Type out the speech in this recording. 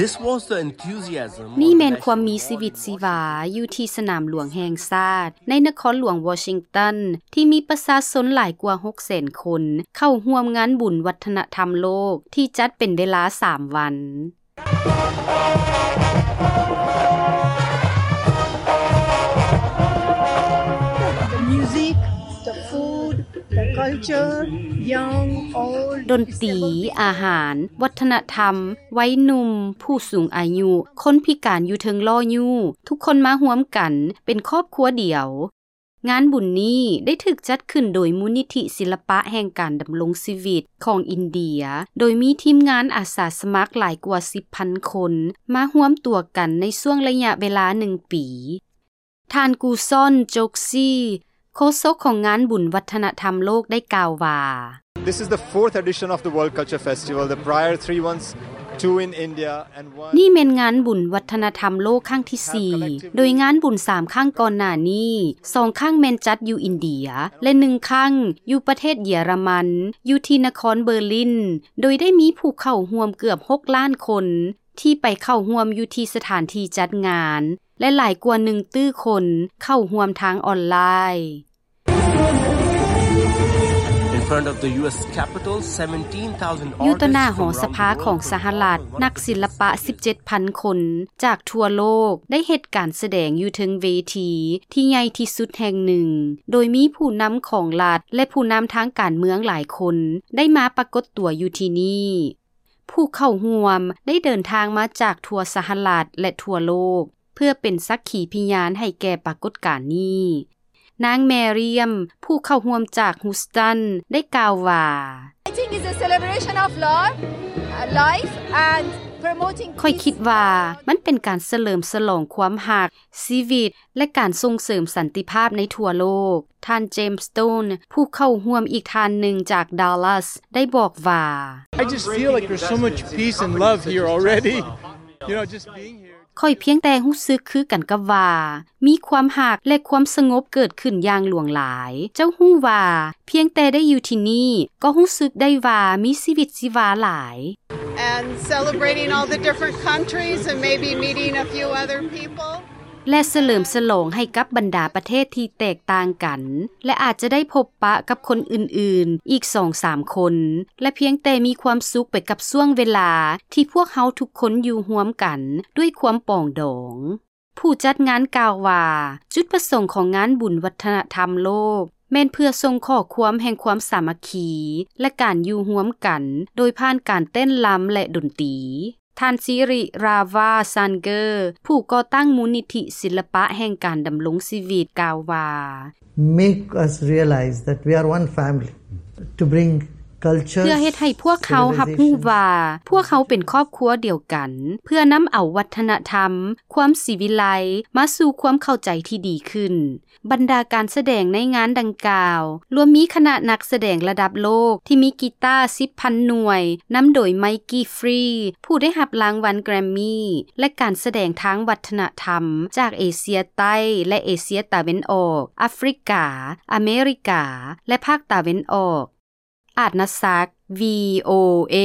This was the enthusiasm ນີ້ແມ່ນຄວາມມີຊີວິດຊີວາຢູ່ທີ່ສະໜາມຫຼວງແຫ່ງຊາດ ໃນນະຄອນຫຼວງວໍຊິງຕັນ ທີ່ມີປະຊາຊົນຫຼາຍກວ່າ ຫົກແສນ ຄົນ ເຂົ້າຮ່ວມງານບຸນວັດທະນະທຳໂລກ ທີ່ຈັດເປັນເວລາ ສາມ ວັນ. The music, the food, the culture, young, old, ດົນຕີ, ອາຫານ, ວັດທະນະທຳ, ໄວໜຸ່ມ, ຜູ້ສູງອາຍຸ, ຄົນພິການຢູ່ເທິງລໍ້ຍູ້ ທຸກຄົນມາຮ່ວມກັນເປັນຄອບຄົວດຽວ. ງານບຸນນີ້ໄດ້ຖືກຈັດຂຶ້ນໂດຍມູນນິທິສິລະປະແຫ່ງການດຳລົງຊີວິດຂອງອິນເດຍ ໂດຍມີທີມງານອາສາສະໝັກຫຼາຍກວ່າ ສິບພັນ ຄົນ ມາຮວມຕົວກັນໃນຊ່ວງໄລຍະເວລາ ໜຶ່ງ ປີ. ທ່ານ ກູຊອນ ໂຈກຊີ ໂຄສົກຂອງງານບຸນວັດທະນະທຳໂລກ ໄດ້ກ່າວວ່າ: This is the fourth edition of the World Culture Festival. The prior three ones, two in India and one ນີ້ແມ່ນງານບຸນວັດທະນະທຳໂລກຄັ້ງທີ ສີ່ ໂດຍງານບຸນ ສາມ ຄັ້ງກ່ອນໜ້ານີ້ ສອງ ຄັ້ງແມ່ນຈັດຢູ່ອິນເດຍ ແລະ ໜຶ່ງ ຄັ້ງຢູ່ປະເທດເຢຍລະມັນ ຢູ່ທີ່ນະຄອນເບີລິນ ໂດຍໄດ້ມີຜູ້ເຂົ້າຮ່ວມເກືອບ ຫົກ ລ້ານຄົນ ທີ່ໄປເຂົ້າຮ່ວມຢູ່ທີ່ສະຖານທີ່ຈັດງານ ແລະ ຫຼາຍກວ່າ ໜຶ່ງ ຕື້ ຄົນເຂົ້າຮ່ວມທາງອອນລາຍ. In front of the U S Capitol, seventeen thousand ຢູ່ຕໍ່ໜ້າ artists ຫໍ from ສະພາ around the world ຂອງສະຫະລັດ ນັກສິລະປະ ສິບເຈັດພັນ ຄົນຈາກທົ່ວໂລກ ໄດ້ເຮັດການສະແດງຢູ່ເທິງເວທີທີ່ໃຫຍ່ທີ່ສຸດແຫ່ງໜຶ່ງ ໂດຍມີຜູ້ນຳຂອງລັດ ແລະ ຜູ້ນຳທາງການເມືອງຫຼາຍຄົນ ໄດ້ມາປາກົດຕົວຢູ່ທີ່ນີ້. ຜູ້ເຂົ້າຮ່ວມໄດ້ເດີນທາງມາຈາກທົ່ວສະຫະລັດ ແລະ ທົ່ວໂລກ ເພື່ອເປັນສັກຂີພະຍານໃຫ້ແກ່ປາກົດການນີ້. ນາງ ແມຣຽມ ຜູ້ເຂົ້າຮ່ວມຈາກ Houston ໄດ້ກ່າວວ່າ: I think it's a celebration of love, uh, life and promoting ຂ້ອຍຄິດວ່າມັນເປັນການສະເຫຼີມສະຫຼອງຄວາມຮັກ, ຊີວິດ ແລະ ການສົ່ງເສີມສັນຕິພາບໃນທົ່ວໂລກ. ທ່ານ ເຈມສ໌ ສະໂຕນ ຜູ້ເຂົ້າຮ່ວມອີກທ່ານໜຶ່ງຈາກ Dallas ໄດ້ບອກວ່າ: I just feel like there's so much peace and love here already. You know, just being here. ຂ້ອຍພຽງແຕ່ຮູ້ສຶກຄືກັນກັບວ່າ ມີຄວາມຮັກ ແລະ ຄວາມສະຫງົບເກີດຂຶ້ນຢ່າງຫຼວງຫຼາຍ. ເຈົ້າຮູ້ວ່າ ພຽງແຕ່ໄດ້ຢູ່ທີ່ນີ້ ກໍຮູ້ສຶກໄດ້ວ່າມີຊີວິດຊີວາຫຼາຍ. And celebrating all the different countries and maybe meeting a few other people. ແລະ ສະເຫຼີມສະຫຼອງໃຫ້ກັບບັນດາປະເທດທີ່ແຕກຕ່າງກັນ ແລະ ອາດຈະໄດ້ພົບປະກັບຄົນອື່ນໆອີກສອງສາມຄົນ ແລະ ພຽງແຕ່ມີຄວາມສຸກໄປກັບຊ່ວງເວລາທີ່ພວກເຮົາທຸກຄົນຢູ່ຮ່ວມກັນດ້ວຍຄວາມປອງດອງ. ຜູ້ຈັດງານກ່າວວ່າ ຈຸດປະສົງຂອງງານບຸນວັດທະນະທຳໂລກ ແມ່ນເພື່ອສົ່ງຂໍ້ຄວາມແຫ່ງຄວາມສາມັກຄີ ແລະ ການຢູ່ຮ່ວມກັນ ໂດຍຜ່ານການເຕັ້ນລຳ ແລະ ດົນຕີ. ທ່ານ ສິຣິຣາວາ ຊານເກີ ຜູ້ກໍ່ຕັ້ງມູນນິທິສິລະປະແຫ່ງການດຳລົງຊີວິດ ກ່າວວ່າ: Make us realize that we are one family. To bring culture, ເພື່ອເຮັດໃຫ້ພວກເຮົາຮັບຮູ້ວ່າ ພວກເຮົາເປັນຄອບຄົວດຽວກັນ ເພື່ອນຳເອົາວັດທະນະທຳ, ຄວາມສີວິໄລ ມາສູ່ຄວາມເຂົ້າໃຈທີ່ດີຂຶ້ນ. ບັນດາການສະແດງໃນງານດັ່ງກ່າວ ລວມມີຄະນະນັກສະແດງລະດັບໂລກທີ່ມີກີຕາ ສິບພັນ ໜ່ວຍ ນຳໂດຍ ໄມກີ ຟຣີ ຜູ້ໄດ້ຮັບລາງວັນແກຣມມີ ແລະ ການສະແດງທາງວັດທະນະທຳຈາກເອເຊຍໃຕ້ ແລະ ເອເຊຍຕາເວັນອອກ, ອາຟຣິກາ, ອາເມລິກາ ແລະ ພາກຕາເວັນອອກ. ອາດນະສັກ ວີໂອເອ.